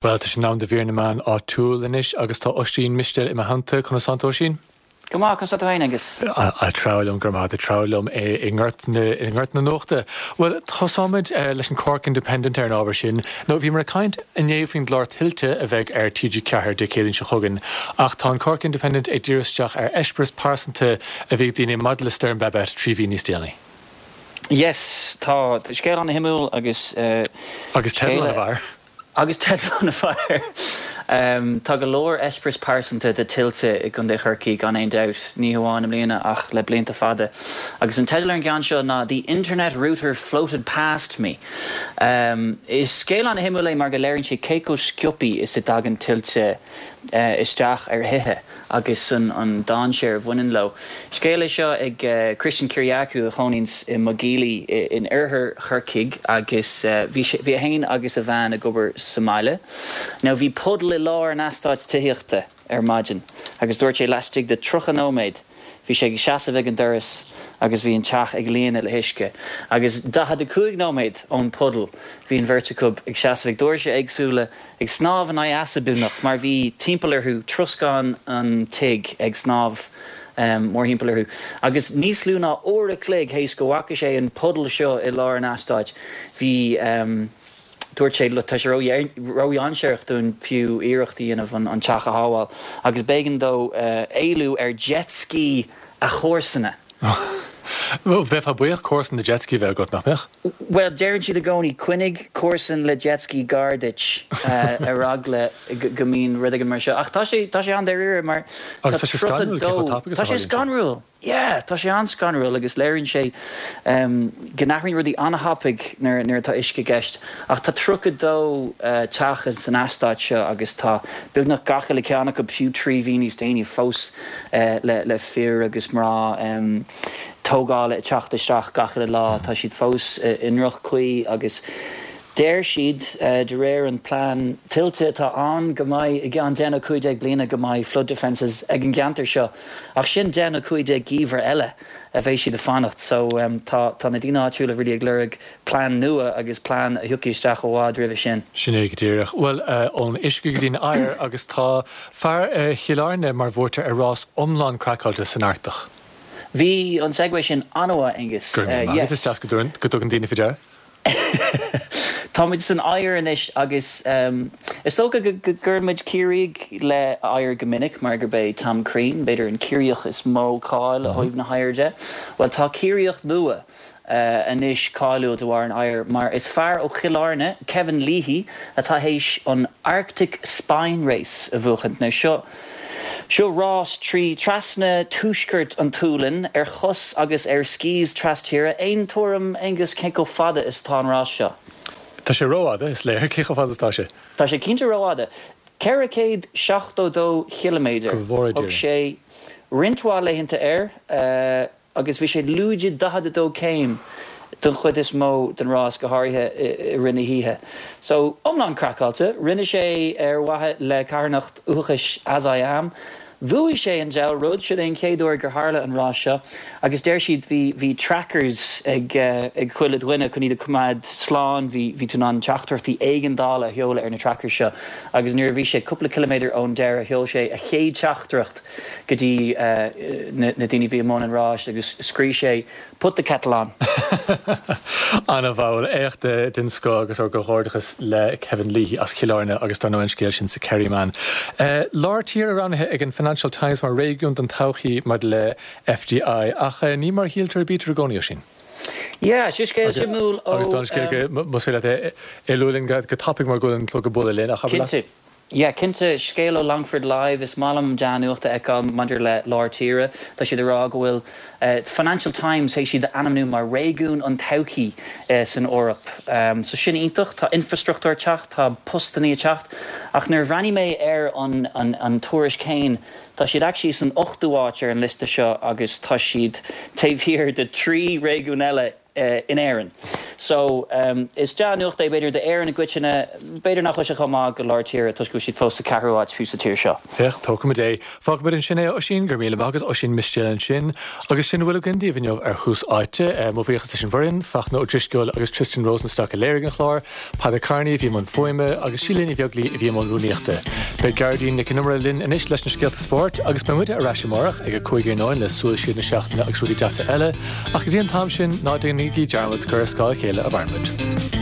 Bhuel, tá sé in am do mhír na meán áitiúil anois agus tá Oisín Mistéil i mo theannta. Conas tánn tú, Oisín? Go maith, conas tá tú féin, Aengus? Ag treabhadh liom, go raibh maith agat, ag treabhadh liom i ngort na, i ngort na nuachta. Bhuel, tosóimid leis an Cork Independent ar an ábhar sin. Nó bhíomar ag caint inné faoin gclár Tuilte a bheidh ar TG4 Dé Céadaoin seo chugainn, ach tá an Cork Independent ag díriú isteach ar eispéireas pearsanta a bhí ag daoine maidir le Stoirm Babet 3 mhí níos déanaí. Yes, tá scéal ana-shuimiúil agus. Agus teideal ana-mhaith air. Agus teideal ana-mhaith air. Tá go leor eispéireas pearsanta de tuilte i gContae Chorcaí gan aon dabht, ní hamháin i mbliana ach le blianta fada. Agus an teideal ar an gceann seo ná The Internet Router Floated Past Me. Is scéal ana-shuimiúil é mar go léiríonn sé cé chomh sciobtha is a dtagann tuilte isteach ar thithe agus an dainséar a bhaineann leo. Scéal é seo ag Christian Kyriacou a chónaíonns i Maigh in oirthear Chorcaigh agus bhí sé, bhí é fhéin agus a bhean ag obair sa mbaile. Now bhí puddle i lár an eastáit tithíochta ar maidin agus dúirt sé laistigh de 30 nóiméad bhí sé ag seasamh ag an doras agus bhí an teach ag líonadh le huisce. Agus 45 nóiméad ón puddle bhí an bheirt acu ag seasamh ag doirse éagsúla ag snámh in aghaidh easa beagnach mar bhí timpeall orthu, troscán an tigh ag snámh mórthimpeall orthu. Agus níos lú ná uair a chloig théis go bhfaca sé an puddle seo i lár an eastáit, bhí, dúirt sé, tá sé ródhainséarach dúinn fiú iarracht a dhéanamh an teach a shábháil. Agus b'éigean dó éalú ar jet ski a chomharsana. Bheifeá buíoch comharsan le jet ski a bheith agat, nach mbeadh? Bhuel, deireann siad i gcónaí, coinnigh comharsan le jet ski gar duit ar eagla go mbíonn rud éigin mar seo. Ach tá sé, tá sé an-dáiríre mar tá Agus tá sé scanrúil cé chomh tapaidh is a tharlaíonn sé. Tá sé scanrúil! Yeah, tá sé an-scanrúil agus léiríonn sé go n-athraíonn rudaí an-thapaidh nuair atá uisce i gceist. Ach tá 32 teach san eastát seo agus tá beagnach gach uile ceann acu, fiú 3 mhí níos déanaí, fós le fir agus mná tógála ag teacht isteach gach uile lá. Tá siad fós i ndroch-chaoi agus deir siad, de réir an plean tuilte atá ann, go mbeidh i gceann 10 nó 15 bliana go mbeidh flood defences ag an gceantar seo. Ach sin 10 nó 15 geimhreadh eile a bheidh siad ag fanacht. So tá na daoine áitiúla really ag lorg plean nua agus plean a thiocfaidh isteach i bhfad roimhe sin. Sin é go díreach. Bhuel, ón uisce go dtí an oighear agus tá fear Chill Airne mar bhuaiteoir ar rás iomlán craiceáilte san Artach. Bhí an segue sin an-mhaith, Aengus. Go raibh míle maith agat, is deas go dtugann daoine faoi deara. Táimid san oighear anois agus is dócha go gcuireann muid Ciarraígh le oighear go minic mar gurb é Tom Crean, b'fhéidir, an Ciarraíoch is mó cáil ó thaobh na hoighir de. Bhuel, tá Ciarraíoch nua anois cáiliúil de bharr an oighir mar is fear ó Chill Airne, Kevin Leahy, atá théis an Arctic Spine Race a bhuachaint. Now seo, seo rás trí trasna tuaisceart an tSualainn ar chos agus ar skis tras-tíre. Aon tuairim, Aengus, cé chomh fada is atá an rás seo? Tá sé rófhada, is léir. Cé chomh fada is atá sé? Tá sé cinnte rófhada. 472 chiliméadar. Go bhfóire Dia Thóg sé roinnt mhaith laethanta air. agus bhí sé lúide 42 céim don chuid is mó den rás, go háirithe i rith na hoíche. So, iomlán craiceáilte. Rinne sé ar mhaithe le carthanacht uathachais As I Am. Bhuaigh sé an diabhal rud, sin é an chéad uair gur tharla an rás seo agus deir siad bhí bhí trackers ag ag chuile dhuine chun iad a choimeád slán, bhí bhí tú in ann teachtaireachtaí éigeandála a sheoladh ar na trackers seo agus nuair a bhí sé cúpla ciliméadar ón deireadh sheol sé a chéad teachtaireacht go dtí na daoine a bhí i mbun an ráis agus scríobh sé 'Put the kettle on'. Ana-mhaith, éacht den scoth agus ár gcomhghairdeachas le Kevin Leahy as Cill Airne agus dar ndóigh an scéal sin sa Kerryman. Lár tíre roghnaithe ag an Financial Times mar réigiún don todhchaí maidir le FDI ach ní mar a shíltear a bítear i gcónaí, Oisín. Yeah, seo scéal suimiúil ó. Agus tá an scéal go, más féidir leat é a lua linn go tapaidh mar go bhfuil an clog ag bualadh linn ach abair leat. Cinnte. Yeah, cinnte, scéal ó Longford Live, is maith liom dea-nuacht a fheiceáil maidir le lár tíre. Tá siad ag rá go bhfuil Financial Times théis iad a ainmniú mar réigiún an todhchaí san Eoraip. So sin iontach, tá infrastruchtúr ag teacht, tá postannaí ag teacht. Ach nuair a bhreathnaigh mé ar an an tuairisc féin, tá siad actually san ochtú háit ar an liosta seo agus tá siad taobh thiar de thrí réigiún eile. in Éirinn. So, is dea-nuacht é b'fhéidir d'Éirinn i gcoitinne, b'fhéidir nach bhfuil sé chomh maith do lár tíre toisc go bhfuil siad fós sa ceathrú háit fiú sa tír seo. Féach, tógfaimid é. Fágfaimid ansin é, a Oisín, go raibh míle maith agat, Oisín Mistéil ansin. Agus sin a bhfuil againn daoibh inniu ar Thús Áite. Mo bhuíochas leis an bhfoireann, Fachtna Ó Drisceoil agus Tristan Rosenstock a léirigh an clár, Peadar Kearney a bhí i mbun fuaime agus Síle Ní Bheaglaoí a bhí i mbun rúnaíochta. Beidh Gearóidín Nic an Iomaire linn anois leis na scéalta spóirt agus beidh muide ar ais amárach ag a 5 iarnóin le Súil Siar na Seachtaine agus rudaí deasa eile, ach go dtí an t-am sin, ná déanaigí dearmad gur ar scáth a chéile a mhaireann muid.